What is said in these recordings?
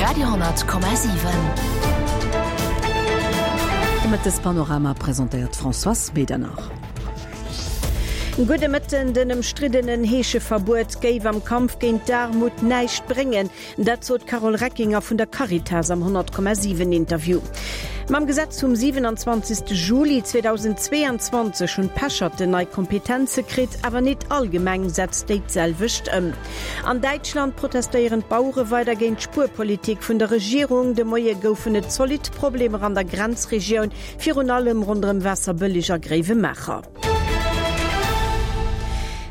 Radio 10,7. De Mëttespanorama presentéiert d'Françoise Medernach. Gudde Mëtten, Den ëmstriddenen Heescheverbuet géif am Kampf géint d'Aarmut näischt bréngen. Dat sot d'Carole Reckinger vun der Caritas am 100,7 Interview. Mam Gesetz vum 27 Juli 2022 hunn d'Pecherten nei Kompetenze kritt, awer nit all Gemeng setzt déi d'selwecht ëm. An Däitschland protestéieren d'Bauere weider géint d'Spuerpolitik vun der Regierung. De Moie goufen et zolidd Problemer an der Grenzregioun, virun allem ronderëm Waasserbëlleg a Gréiwemaacher.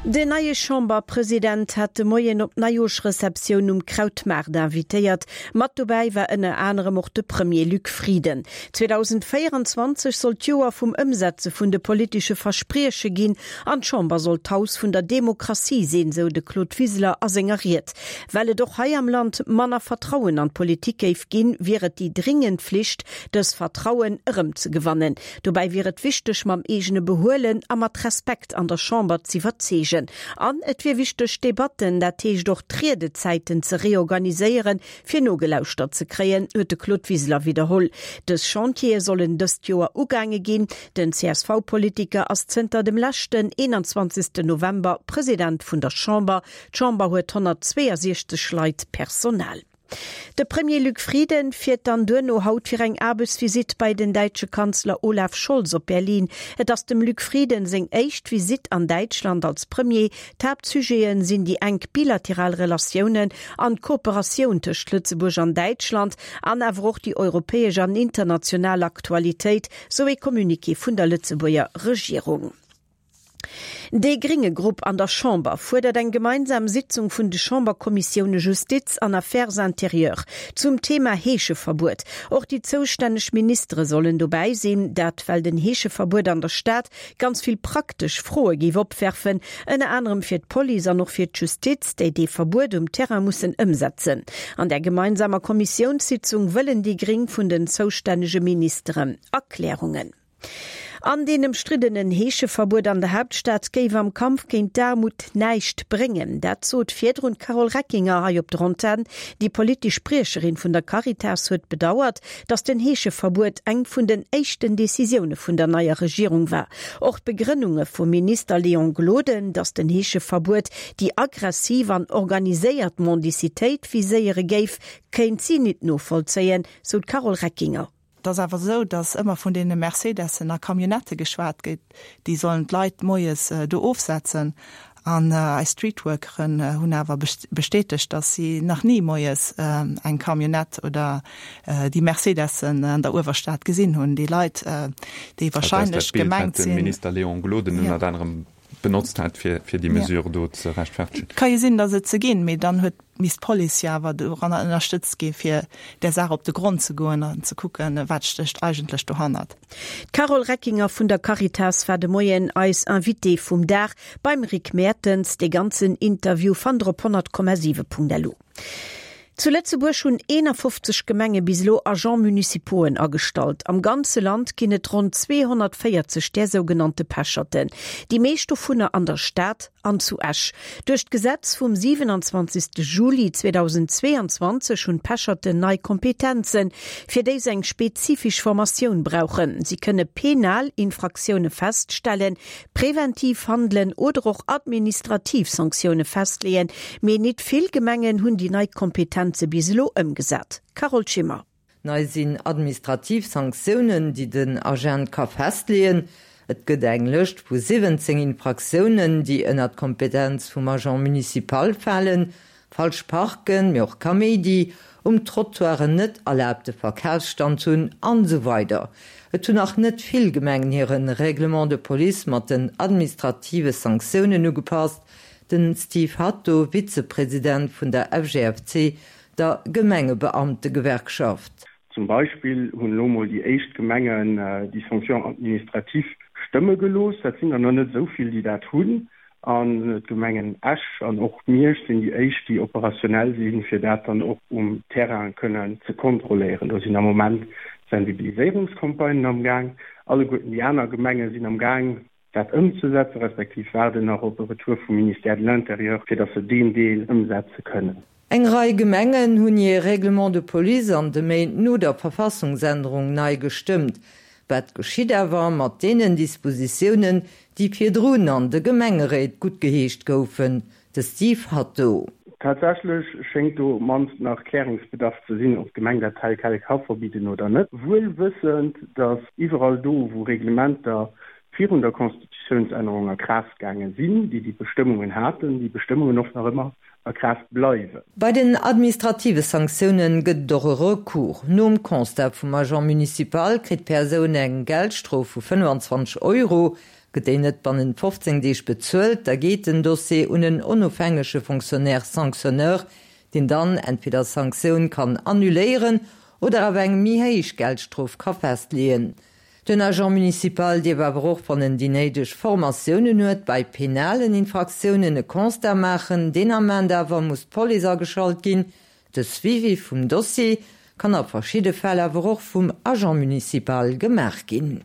Den neie Chamberpresident hat de Moien op d'Neijoerschreceptioun um Krautmaart invitéiert. Mat dobäi war ënner anerem och de Premier Luc Frieden. 2024 soll d'Joer vum Ëmsetze vun de politesche Versprieche ginn an d'Chamber soll d'Haus vun der Demokratie sinn, sou de Claude Wiseler a senger Ried. Well et och hei am Land manner Vertrauen an d'Politik géif ginn, wier et déi dringend Flicht, dës Vertrauen erëmzegewannen. Dobäi wier et wichteg, mam eegene Behuelen a mat Respekt an der Chamber z'iwwerzeegen. An et wier wichteg, d'Debatten, dat heescht och d'Riedezäiten ze reorganiséieren, fir nogelauschtert ze kréien, huet de Claude Wiseler widderholl. Dës Chantiere sollen dëst Joer ugaange ginn. Den CSV-Politiker ass zënter dem leschten 21. November President vun der Chamber. D'Chamber huet 162 Leit Personal. De Premier Luc Frieden fiert dann duerno haut fir eng Aarbechtsvisitt bei den däitsche Kanzler Olaf Scholz op Berlin. Et ass dem Luc Frieden seng éischt Visitt an Däitschland als Premier. D'Haaptsujete sinn déi enk bilateral Relatiounen an d'Kooperatioun tëscht Lëtzebuerg an Däitschland an awer och déi europäesch an international Aktualitéit, sou ee Communiqué vun der Lëtzebuerger Regierung. Dee grénge Grupp an der Chamber fuerdert eng gemeinsam Sitzung vun de Chamberkommissioune Justiz an Affaires intérieures zum Thema Heescheverbuet. Och déi zoustänneg Ministere sollen dobäi sinn. Dat well den Heescheverbuet an der Stad ganz vill praktesch Froe géif opwerfen, ënner anerem fir d'Police an och fir d'Justiz, déi dee Verbuet um Terrain mussen ëmsetzen. An där gemeinsamer Kommissiounssitzung wëllen déi Gréng vun den zoustännege Ministeren Erklärungen. An deen ëmstriddenen Heescheverbuet an der Haaptstad géif am Kampf géint d'Aarmut näischt bréngen. Dat sot virdrun d'Carole Reckinger hei op der Antenn. Déi politesch Spriecherin vun der Caritas huet bedauert, datt den Heescheverbuet eng vun den éischten Decisioune vun der neier Regierung war. Och d'Begrënnunge vum Minister Léon Gloden, datt den Heescheverbuet déi aggressiv an organiséiert Mendicitéit viséiere géif, kéint si nit novollzéien, sou d'Carole Reckinger. Et ass awer esou, datt ëmmer vun deene Mercedessen a Camionnettë geschwat gétt, déi sollen d'Leit moies do ofsetzen. An eis Streetworkeren hunn awer bestätegt, datt si nach ni moies eng Camionnette oder déi Mercedessen an der Uewerstad gesinn hunn. Déi Leit, déi wahrscheinlech gemengt sinn. Dat ass dat Bild, wat de Minister Léon Gloden ënnert anerem benotzt hat, fir déi Mesure do ze rechtfertegen. Et ka jo sinn, datt et se ginn, mee dann huet misst d'Police jo awer doranner ënnerstëtzt gi fir där Saach op de Grond ze goen an ze kucken, wat stécht eigentlech dohannert. D'Carole Reckinger vun der Caritas war de Moien eis Invitée vum Dag beim Rick Mertens. Dee ganzen Interview fannt der op 100,7.lu. Zu Lëtzebuerg hunn 51 Gemenge bis elo Agents municipauxen agestallt. Am ganze Land ginn et ronn 240 där sougenannte Pecherten. Déi meescht dovunner an der Stad an zu Esch. Duerch d'Gesetz vum 27 Juli 2022 hunn d'Pecherten nei Kompetenzen, fir déi se eng spezifesch Formatioun brauchen. Si kënne penal Infraktioune feststellen, preventiv handelen oder och administrativ Sanktioune festleeën. Mee nit vill Gemengen hunn déi nei Kompetenze bis elo ëmgesat. Carole Schimmer. Nei sinn administrativ Sanktiounen, déi den Agent ka festleeën. Et gëtt eng Lëscht vu 17 Infraktiounen, déi ënner d'Kompetenz vum Agent municipal falen, falsch parken, mee och Kaméidi, um Trottoir en net erlaabte Verkafsstand hunn an esou weider Et hunn nach net vill Gemengen hire Règlement de police mat den administrative Sanktiounen ugepasst. Den Steve Hatto, Vizepresident vun der FGFC, der Gemengebeamtegewerkschaft. Zum Beispill hunn elo mol déi éischt Gemengen déi Sanction administrative stëmme gelooss. Dat sinn der nach net esou vill, déi dat hunn. An d'Gemengen Esch an och Miersch sinn déi éischt, déi operationell sinn, fir dat dann och um Terrain kënnen ze kontrolléieren. Do sinn am Moment Sensibiliséierungscampagnen am Gaang. Alleguerten déi aner Gemenge sinn am Gaang, dat ëmzesetzen, respektiv waarden nach op e Retour vum Ministère de l'Intérieur, fir datt se deen Deel ëmsetze kënnen. Eng Rei Gemengen hunn hir Règlements de police an de Méint no der Verfassungsännerung nei gestëmmt. Wat geschitt awer mat deenen Dispositiounen, déi virdrun an de Gemengeréit guttgeheescht goufen? De Steve Hatto. Tatsächlech schéngt do op mannst nach Klärungsbedarf ze sinn, ob d'Gemeng dat tel quel ka verbidden oder net. Wuel wëssend, datt iwwerall do, wou Reglementer virun der Constitutiounsännerung a Kraaft gaange sinn, déi déi Bestëmmungen haten, déi Bestëmmungen och nach ëmmer a Kraaft bleiwen. Bei den administrative Sanktiounen gëtt et och e Recours. Nom Constat vum Agent municipal kritt d'Persoun eng Geldstrof vu 25 Euro. Gëtt déi net bannent 15 Deeg bezuelt, da geet den Dossier un en onofhängege Fonctionnaire sanctionneur, deen dann entweder d'Sanktioun kann annuléieren oder awer eng méi héich Geldstrof ka festleeën. Den Agent municipal dierf awer och, wann en déi néideg Formatiounen huet, bei penalen Infraktiounen e Constat maachen. Deen Ament awer muss d'Police ageschalt ginn. De Suivi vum Dossier kann a verschidde Fäll awer och vum Agent municipal gemaach ginn.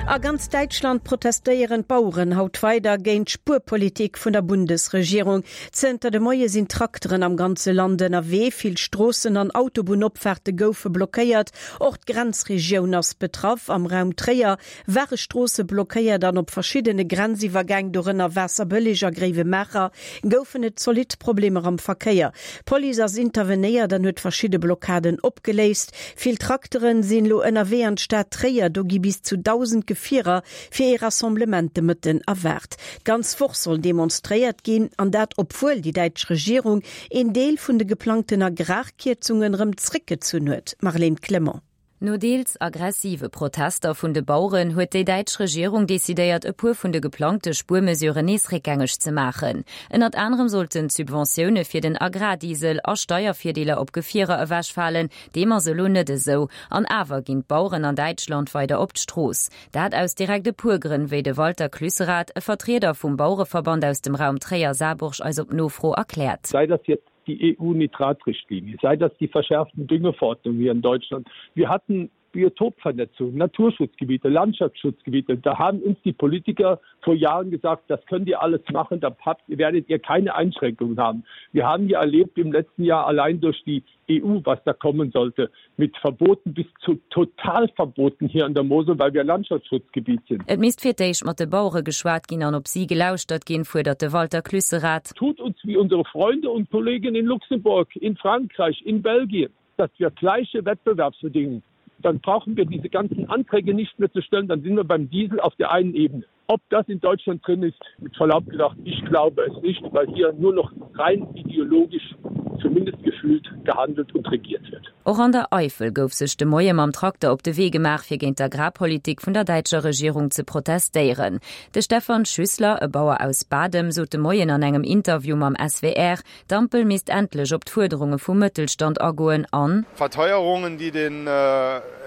A ganz Däitschland protestéieren d'Baueren haut weider géint d'Spuerpolitik vun der Bundesregierung. Zënter de Moie sinn Trakteren am ganze Land ënnerwee. Vill Stroossen an Autobunnopfaarte goufe blockéiert. Och d'Grenzregioun ass betraff. Am Raum Tréier ware Stroosse blockéiert an op verschiddene Grenziwwergäng, dorënner Waasserbëlleg a Gréiwemaacher, goufen et zolidd Problemer am Verkéier. D'Police ass intervenéiert an huet verschidde Blockaden opgeléist. Vill Trakteren sinn elo ënnerwee an d'Stad Tréier. Do gi bis zu 1.000 Gefierer fir ee Rassemblement de Mëtten erwaart. D'ganz Woch soll demonstréiert ginn, an dat obwuel déi däitsch Regierung een Deel vun de geplangten Agrarkierzungen erëm zréckgezunn huet. Marlène Clement. No deels aggressive Protester vun de Baueren huet déi däitsch Regierung decidéiert, e puer vun de geplangte Spuermesuren nees réckgängeg ze maachen. Ënnert anerem sollten d'Subventioune fir den Agrardiesel a Steiervirdeeler op Gefierer ewechfalen. Deem ass elo net esou. An awer ginn d'Baueren an Däitschland weider op d'Strooss. Dat aus direkt e puer Grënn, wéi de Walter Clüsserath, e Vertrieder vum Bauereverband aus dem Raum Tréier-Saarburg eis op Nofro erkläert. Sei das jetzt die EU-Nitratrichtlinie, sei das die verschärften Düngeverordnungen hier in Deutschland. Wir hatten Biotopvernetzung, Naturschutzgebiete, Landschaftsschutzgebiete. Da haben uns die Politiker vor Jahren gesagt, das könnt ihr alles machen, da habt, werdet ihr keine Einschränkungen haben. Wir haben ja erlebt im letzten Jahr allein durch die EU, was da kommen sollte, mit Verboten bis zu Totalverboten hier an der Mosel, weil wir Landschaftsschutzgebiet sind. Et misst fir d'éischt mat de Bauere geschwat ginn an op si gelauschtert ginn, fuerdert de Walter Clüsserath. Tut uns wie unsere Freunde und Kollegen in Luxemburg, in Frankreich, in Belgien, dass wir gleiche Wettbewerbsbedingungen dann brauchen wir diese ganzen Anträge nicht mehr zu stellen, dann sind wir beim Diesel auf der einen Ebene. Ob das in Deutschland drin ist, mit Verlaub gesagt, ich glaube es nicht, weil hier nur noch rein ideologisch zumindest gefühlt gehandelt und regiert wird. Och an der Eifel gouf sech de Moie mam Trakter op de Wee gemaach, fir géint d'Agrarpolitik vun der däitscher Regierung ze protestéieren. De Stefan Schüssler, e Bauer aus Badem, sot de Moien an engem Interview mam SWR, D'Ampel misst endlech op d'Fuerderunge vum Mëttelstand agoen an. Verteuerungen, die den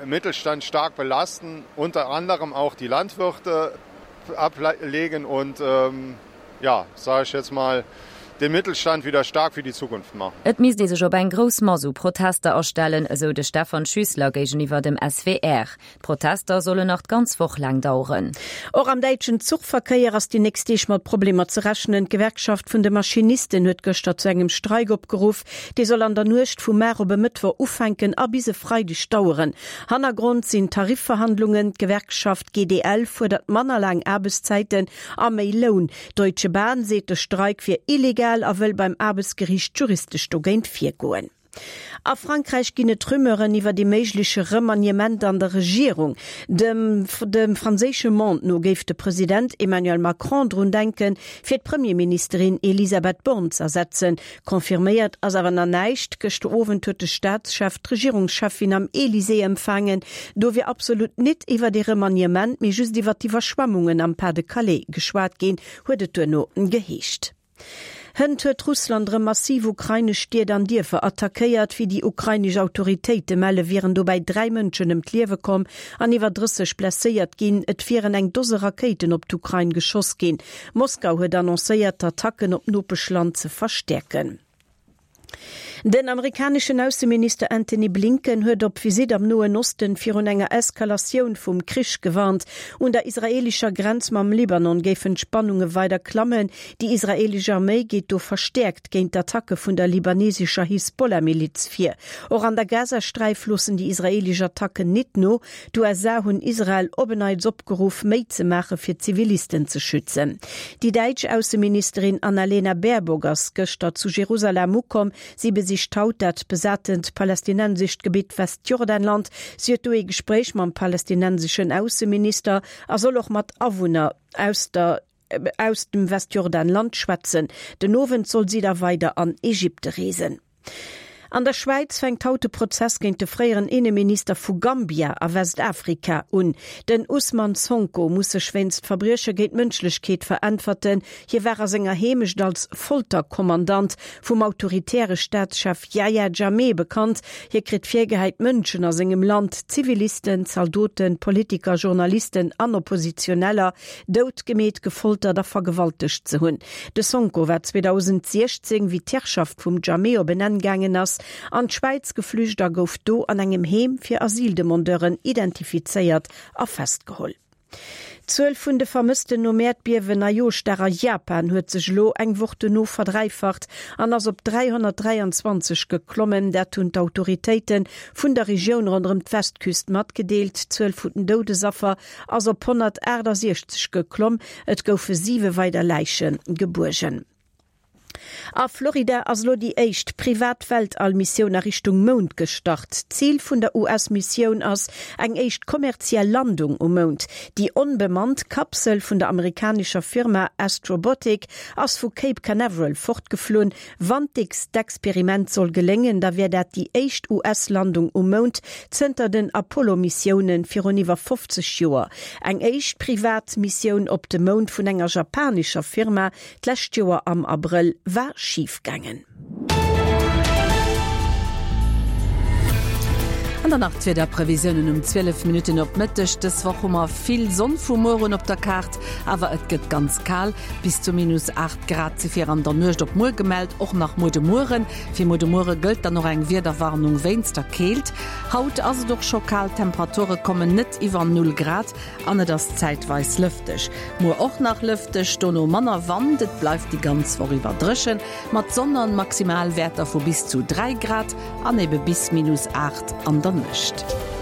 Mittelstand stark belasten, unter anderem auch die Landwirte ablegen und ja, sage ich jetzt mal, den Mittelstand wieder stark für die Zukunft machen. Et misst ee sech op eng grouss Mass u Protester astellen, esou de Stefan Schüssler géigeniwwer dem SWR. D'Protester sollen nach d'ganz Woch laang daueren. Och am däitschen Zuchverkéier ass déi nächst Deeg mat Problemer ze rechnen. D'Gewerkschaft vun de Maschinisten huet gëschter zu engem Streik opgeruff. Dee soll an der Nuecht vu mar op e Mëttwoch ufänken a bis e Freideg daueren. Hannergrond sinn Tarifverhandlungen. D'Gewerkschaft GDL fuerdert manner laang Aarbechtszäiten a méi Loun. D'Deutsche Bahn seet, de Streik wier illegal a wëll beim Aarbechtsgeriicht juristesch dogéint virgoen. A Frankräich ginn et Rumeuren iwwer ee méigleche Remaniement an der Regierung. Dem dem franséische Monde no géif de President Emmanuel Macron drun denken, fir d'Premierministerin Elisabeth Borne z'ersetzen. Confirméiert ass awer nach näischt. Gëschter Owend huet de Staatschef d'Regierungscheffin am Elysée empfaangen. Do wier absolut nit iwwer ee Remaniement, mee just iwwer d'Iwwerschwemmungen am Pas-de-Calais geschwat ginn, huet et duerno geheescht. Hënt huet Russland erëm massiv ukrainesch Stied an Dierfer attackéiert. Wéi déi ukrainesch Autoritéite melle wieren dobäi 3 Mënschen ëm d'Liewe komm an iwwer 30 blesséiert ginn. Et wieren eng Dose Rakéiten op d'Ukrain geschoss ginn. Moskau huet annoncéiert, d'Attacken op d'Nopeschland ze verstäerken. Den amerikaneschen Ausseminister Antony Blinken huet op Visitt am Noen Osten virun enger Eskalatioun vum Krich gewarnt. Un der israeelescher Grenz mam Libanon géifen d'Spannunge weider klammen. Déi israeelesch Arméi geet do verstäerkt géint d'Attacke vun der libanesescher Hisbollah-Miliz vir. Och an der Gazasträif loossen déi israeelesch Attacken nit no. D'USA hunn Israel op en Neits opgeruff, méi ze maache fir d'Zivilisten ze schützen. Déi däitsch Ausseministerin Annalena Baerbock ass gëschter zu Jerusalem ukomm. Si besicht haut dat besatent palästinensescht Gebitt Westjordanland. Si huet do ee Gespréich mam palästinenseschen Ausseminister a soll och mat Awunner aus der aus dem Westjordanland schwätzen. Den Owend soll si da weider an Ägypte reesen. An der Schwäiz fänkt haut de Prozess géint de fréieren Inneminister vu Gambia a Westafrika un. Den Ousmane Sonko muss sech wéinst Verbrieche géint d'Mënschlechkeet veräntwerten. Hie war a senger Heemecht als Folterkommandant vum autoritäre Staatschef Yahya Jammeh bekannt. Hie kritt virgehäit, Mënschen a sengem Land, Zivilisten, Zaldoten, Politiker, Journalisten an Oppositioneller, doutgemeet, gefoltert a vergewaltegt ze hunn. De Sonko war 2016, wéi d'Herrschaft vum Jammeh op en Enn gaangen ass, an d'Schwäiz geflücht a gouf do an engem Heem fir Asyldemandeuren identifizéiert a festgeholl. D'Zuel vun de Vermëssten nom Äerdbiewen Neijoerschdag a Japan huet sech elo eng Woch dono verdräifacht an ass op 323 geklommen. Dat hunn d'Autoritéite vun der Regioun ronderëm d'Westküst matgedeelt. D'Zuel vun den Doudesaffer ass op 168 geklomm. Et goufe siwe weider Läiche gebuergen. A Florida ass elo déi éischt privat Weltall-Missioun a Richtung Mound gestart. Zil vun der US-Missioun ass eng éischt kommerziell Landung um Mound. Déi onbemannt Kapsel vun der amerikanescher Firma Astrobotic ass vu Cape Canaveral fortgeflunn. Wann d'Experiment soll geléngen, da wär dat déi éischt US-Landung um Mound zënter den Apollo-Missioune virun iwwer 50 Joer. Eng éischt privat Missioun op de Mound vun enger japanescher Firma d'lescht Joer am Abrëll war schif gaangen. An dann nach d'Wiederprevisiounen um 12 Minutten op Mëtteg. Dës Woch hu mer vill Sonn vu muer un op der Kaart, awer et gëtt ganz kal. Bis zu minus 8 Grad si fir an der Nuecht op muer gemellt, och nach muer de Mueren. Fir muer de Muere gëllt dann och eng Wiederwarnung wéinst der Keelt. Haut ass et och scho kal, d'Temperature kommen net iwwer Null Grad an et ass zäitweis lëfteg. Muer och nach lëfteg, dono manner Wand. Et bleift déi ganz Woch iwwer dréchen, mat Sonn an Maximalwäerter vu bis zu 3 Grad an ebe bis minus 8 an der Nuecht.